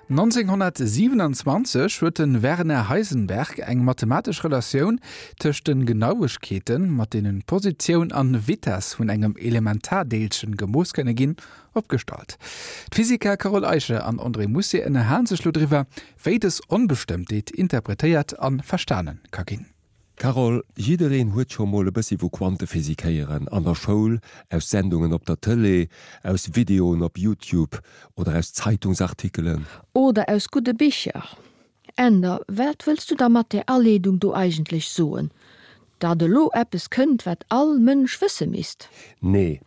1927 huet de Werner Heisenberg eng mathematesch Relatioun tëscht de Genauegkeeten, mat deenen d'Positioun an Vitess vun engem Elementardeelchen gemooss kënne ginn, opgestallt. D'Physiker Carole Eicher an André Mousset ënnerhalen sech lo driwwer, wéi dës Onbestëmmtheet interpretéiert a verstane ka ginn. Carole, jiddereen huet scho mol e bëssi vu Quantephysik héieren, an der Schoul, aus Sendungen op der Tëlee, aus Videoen op Youtube oder aus Zeitungsartikelen. Oder aus gudde Bicher. Änder, wat wëlls du da mat där Aleedung do eigentlech soen? Datt elo eppes kënnt, wat all Mënsch wësse misst? Nee,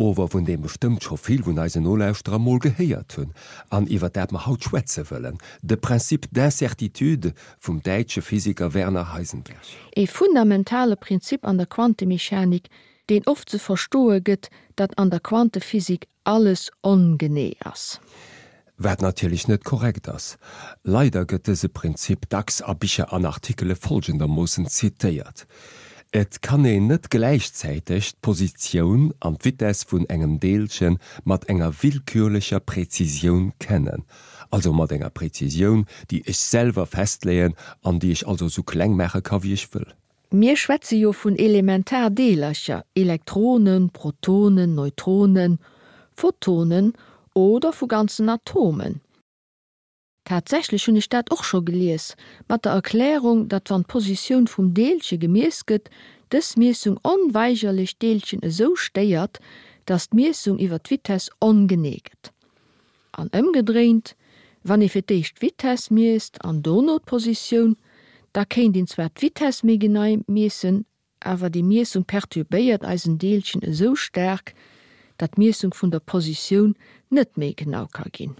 ower vun deem bestëmmt scho vill vun eisen Nolauschterer mol gehéiert hunn an iwwer dat mer haut schwätze wëllen, de Principe d'incertitude vum däitsche Physiker Werner Heisenberg. Ee fundamentale Prinzip an der Quantemechanik, deen oft ze verstoe gëtt, datt an der Quantephysik alles ongenee ass. Wat natierlech net korrekt ass. Leider gëtt dëse Prinzip dacks a Bicher an Artikele folgendermoossen zitéiert, Et kann een net gläichzäiteg d'Positioun an d'Vitess vun engem Deelche mat enger willkürlecher Präzisioun kennen, also mat enger Präzisioun, déi ech selwer festleeën an déi ech also sou kleng maache ka wéi ech wëll. Mir schwätze jo vun Elementardeelercher, Elektronen, Protonen, Neutronen, Photonen oder vu ganzen Atomen. Tatsächlech hunn ech dat och scho gelies, mat der Erklärung, datt wann d'Positioun vum Deelche gemiess gëtt, dës Miessung onweigerlech d'Deelchen esou stéiert, datt d'Miessung iwwer d'Vitess ongenee gëtt. An ëmgedréint, wann ee fir d'éischt d'Vitess miesst an dono d'Positioun, da kéint een zwar d'Vitess méi genei miessen, awer déi Miessung perturbéiert eisen Deelchen esou staark, datt d'Miessung vun der Positioun net méi genau ka ginn.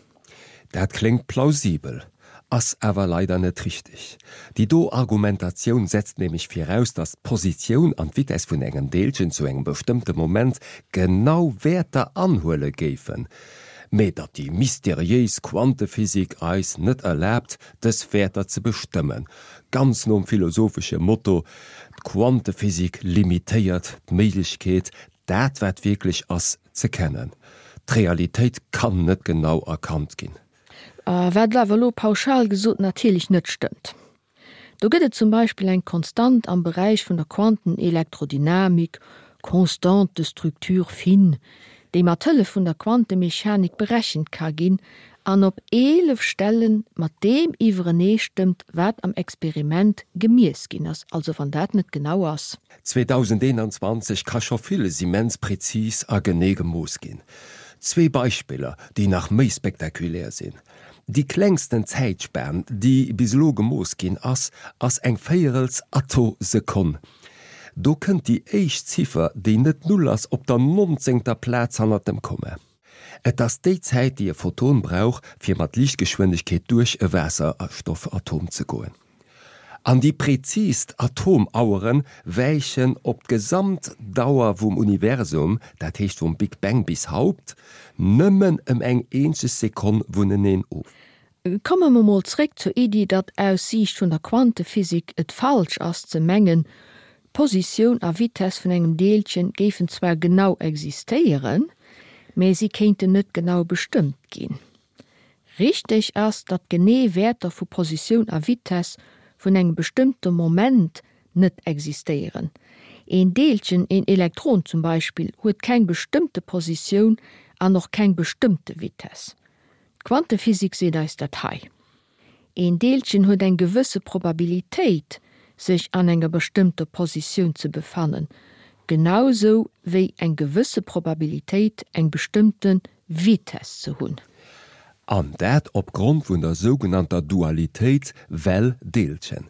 Dat kléngt plausibel, ass awer leider net richteg. Déi do Argumentatioun setzt nämlech viraus, datt d'Positioun an d'Vitess vun engem Deelchen zu engem bestëmmte Moment genau Wäerter anhuele géifen, mee datt déi mysteriéis Quantephysik eis net erlaabt, dës Wäerter ze bestëmmen, ganz nom philosophesche Motto, D'Quantephysik limitéiert d'Méiglechkeet, dat wat wierklech ass, ze kennen. D'Realitéit kann net genau erkannt ginn. Wat awer elo pauschal gesot natierlech net stëmmt. Do gëtt et zum Beispill eng Konstant am Beräich vun der Quantenelektrodynamik, Constante de structure fine, déi mat Hëllef vun der Quantemechanik berechent ka ginn an op 11 Stelle mat deem iwwereneestëmmt, wat am Experiment gemiess ginn ass, also wann dat net genau ass. 2021 ka scho villes immens prezis a genee gemooss ginn. Zwee Beispiller, déi nach méi spektakulär sinn, Déi klengsten Zäitspan, déi bis elo gemooss ginn ass, ass eng véierels Attosekonn. Do kënnt déi éischt Ziffer, déi net d'Null ass, op der nonzéngter Plaz hannert dem Komma. Et ass déi Zäit, déi e Photon brauch, fir mat Liichtgeschwindegkeet duerch e Waasserstoffatom ze goen. An déi präzist Atomauere wäichen op d'gesamt Dauer vum Universum, dat heescht vum Big Bang bis haut, nëmmen ëm eng eenzeg Sekonn vuneneen of. Komme mer mol zréck zur Iddi, datt aus Siicht vun der Quantephysik et falsch ass ze mengen, d'Positioun a Vitess vun engem Deelchen géifen zwar genau existéieren, mä si kéinten net genau bestëmmt ginn. Richteg ass, datt genee Wäerter vu Positioun a Vitess vun engem bestëmmte Moment net existéieren. Een Deelchen, een Elektron zum Beispill, huet keng bestëmmte Positioun an och keng bestëmmte Vitess. D'Quantephysik seet eis dat hei. Een Deelchen huet eng gewësse Probabilitéit, sech an enger bestëmmter Positioun ze befannen, genau sou wéi eng gewësse Probabilitéit, eng bestëmmte Vitess ze hunn. An dat opgrond vun der sougenannter Dualitéit Well-Deelchen.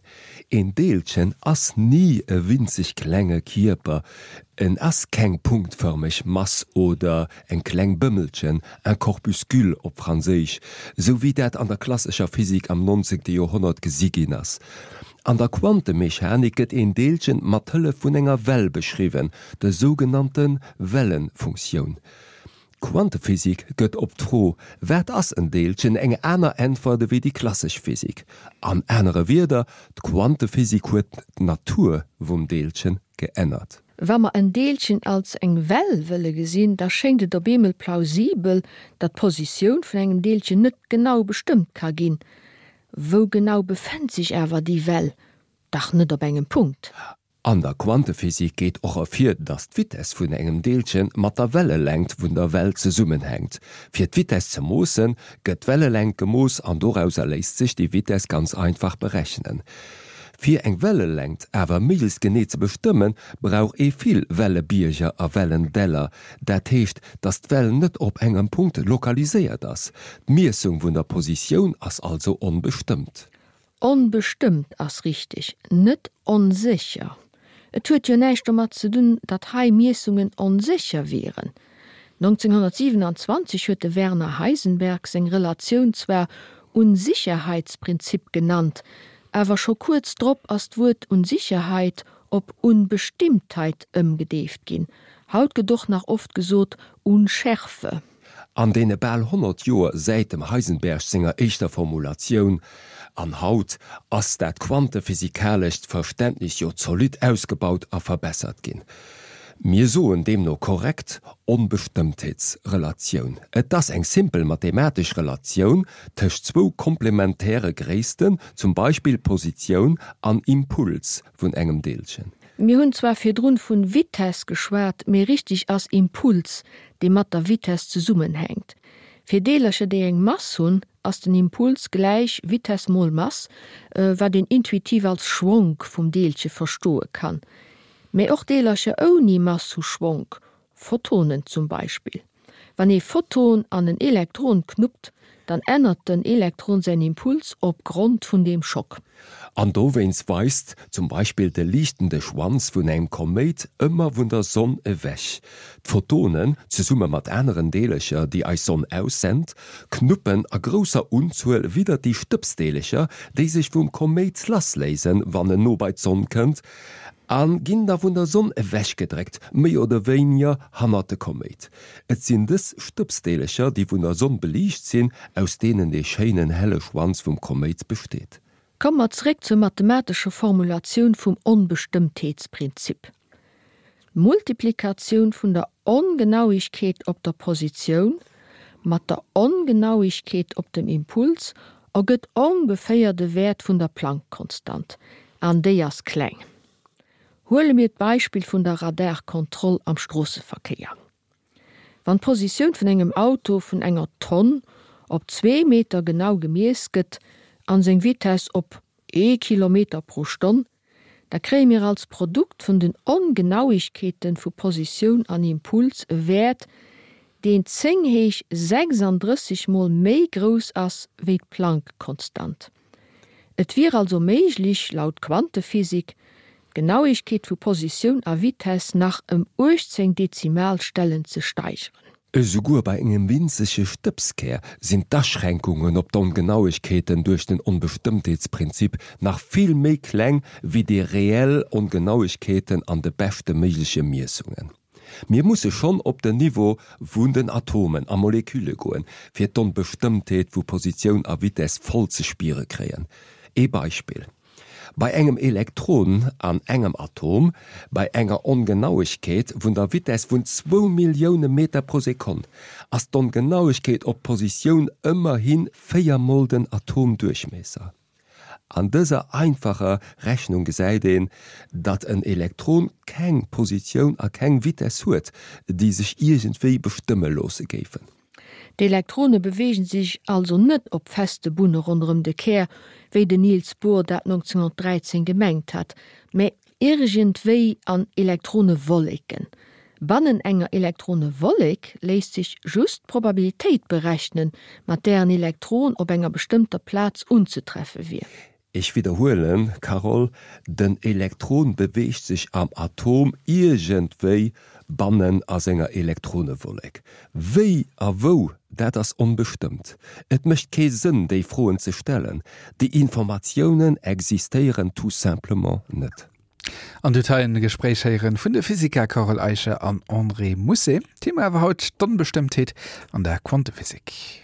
Een Deelchen ass ni e winzeg klenge Kierper, en ass keng punktfërmeg Mass oder eng kleng Bëmmelchen, un corpuscule op Franséisch, sou wéi dat an der klassescher Physik am nonzéngte Joerhonnert gesi ginn ass. An der Quantemechanik gëtt een Deelchen mat Hëllef vun enger Well beschriwwen, der sougenannte Wellefunktioun. D'Quantephysik gëtt op d'Fro Wat ass en Deelchen? eng aner Äntwert ewéi déi klassesch Physik. An anere Wierder, d'Quantephysik huet d'Natur vum Deelchen geännert. Wa mer en Deelchen als eng Well wëlle gesinn, da schéngt et op eemol plausibel, datt d'Positioun vun engem Deelchen net genau bestëmmt ka ginn. Wou genau befënnt sech awer déi Well? Dach net op engem Punkt. An der Quantephysik geet och ervir, datt d'Vitess vun engem Deelche mat der Wellelängt vun der Well zesummenhänkt. Fir d'Vitess ze moossen, gëtt d'Wellelängt gemooss an dorauser léisst sech déi Vitess ganz einfach berechnen. Fir eng Wellelängt awer méiglechst genee ze bestëmmen, brauch ee vill Wellebierger a Wellendäller, dat heescht, datt d'Well net op engem Punkt lokaliséiert ass. D'Miessung vun der Positioun ass also onbestëmmt. Onbestëmmt ass richteg, net onsécher. Et huet jo näischt domat ze dunn, datt hei Miessungen onsécher wieren. 1927 huet de Werner Heisenberg seng Relatioun zwar Unsicherheitsprinzip genannt, awer scho kuerz drop ass d'Wuert Unsicherheit op Unbestimmtheit ëmgedeeft ginn. Haut gëtt och nach oft gesot Unschärfe. An deene bal 100 Joer säit dem Heisenberg senger éischter Formulatioun, an haut, ass dat quantephysikalescht Verständnis jo zolidd ausgebaut a verbessert ginn. Mir soen deemno korrekt Onbestëmmtheetsrelatioun. Et ass eng simpel mathematesch Relatioun tëscht zwou komplementäre Gréissten, zum Beispill Positioun an Impuls vun engem Deelchen. Mir hunn zwar virdrun vun Vitess geschwat, mee richteg ass Impuls, dee mat der Vitess zesummenhänkt. Fir Deelercher déi eng Mass hunn, ass den Impuls gläich Vitess mol Mass, wat een intuitiv als Schwonk vum Deelche verstoe kann. Mee och Deelercher ouni Mass hu Schwonk, Photonen zum Beispill. Wann ee Photon an en Elektron knuppt, dann ännert den Elektron säin Impuls op Grond vun deem Schock. An dowéinst weist zum Beispill de liichtende Schwanz vun engem Koméit ëmmer vun der Sonn ewech. D'Photonen, zesumme mat aneren Deelercher, déi eis Sonn aussent, knuppen a grousser Unzuel widder déi Stëbsdeelercher, déi sech vum Koméit lassléisen, wann en no bei d'Sonn kënnt, A ginn da vun der Sonn ewechgedréckt, méi oder wéiniger hannert de Koméit. Et sinn dës Stëbsdeelercher, déi vun der Sonn beliicht sinn, aus deenen dee schéinen helle Schwanz vum Koméit besteet. Komme mer zeréck zur mathematescher Formulatioun vum Onbestëmmtheetsprinzip. D'Multiplikatioun vun der Ongenauigkeet op der Positioun mat der Ongenauigkeet op dem Impuls ergëtt ongeféier de Wäert vun der Planck-Konstant, an déi ass kleng. Huele mir d'Beispill vun der Radarkontroll am Stroosseverkéier. Wann d'Positioun vun engem Auto vun enger Tonn op zwee Meter genau gemiess gëtt an seng Vitess op ee Kilometer pro Stonn, da kréie mir als Produkt vun den Ongenauigkeeten vu Positioun an Impuls e Wäert, deen 10 héich 36 mol méi grouss ass wéi d'Planck-Konstant. Et wier also méiglich, laut Quantephysik, d'Genauigkeet vu Positioun a Vitess nach ëm 18 Dezimalstellen ze steigeren. Esouguer bei engem winzege Stëbskär sinn d'Aschränkungen op d'Ongenauegkeeten duerch den Onbestëmmtheetsprinzip nach vill méi kleng wéi déi reell Ongenauegkeeten an de beschte méigleche Miessungen. Mir musse schonn op den Niveau vun den Atomen a Molekülle goen, fir d'Onbestëmmtheet vu Positioun a Vitess voll ze spiere kréien. Ee Beispill, Bei engem Elektron an engem Atom, bei enger Ongenauegkeet vun der Vitess vun zwou Millioune Meter pro Sekonn, ass d'Ongenauegkeet op d'Positioun ëmmerhi 4 mol den Atomduerchmiesser. An dëser einfacher Rechnung gesäit een, datt en Elektron keng Positioun a keng Vitess huet, déi sech iergendwéi bestëmme loosse géifen. D'Elektrone beweegen sech also net op feste Bunne ronderëm de Kär, wéi den Niels Bohr dat 1913 gemengt hat, mä iergendwéi an Elektronewolleken. Bannen enger Elektronewollek léisst sech just d'Probabilitéit berechnen, mat där en Elektron op enger bestëmmter Plaz unzetreffe wier. Ech widderhuelen, Carole, den Elektron beweegt sech am Atom iergendwéi bannen a senger Elektronewollek. Wéi a wou, dat ass onbestëmmt. Et mécht kee Sënn, déi Froen ze stellen. Déi Informatiounen existéieren tout simplement net. An dir hutt hei en Gespréich héieren vun de Physiker Carole Eicher an André Mousset. Thema war haut d'Onbestëmmtheet an der Quantephysik.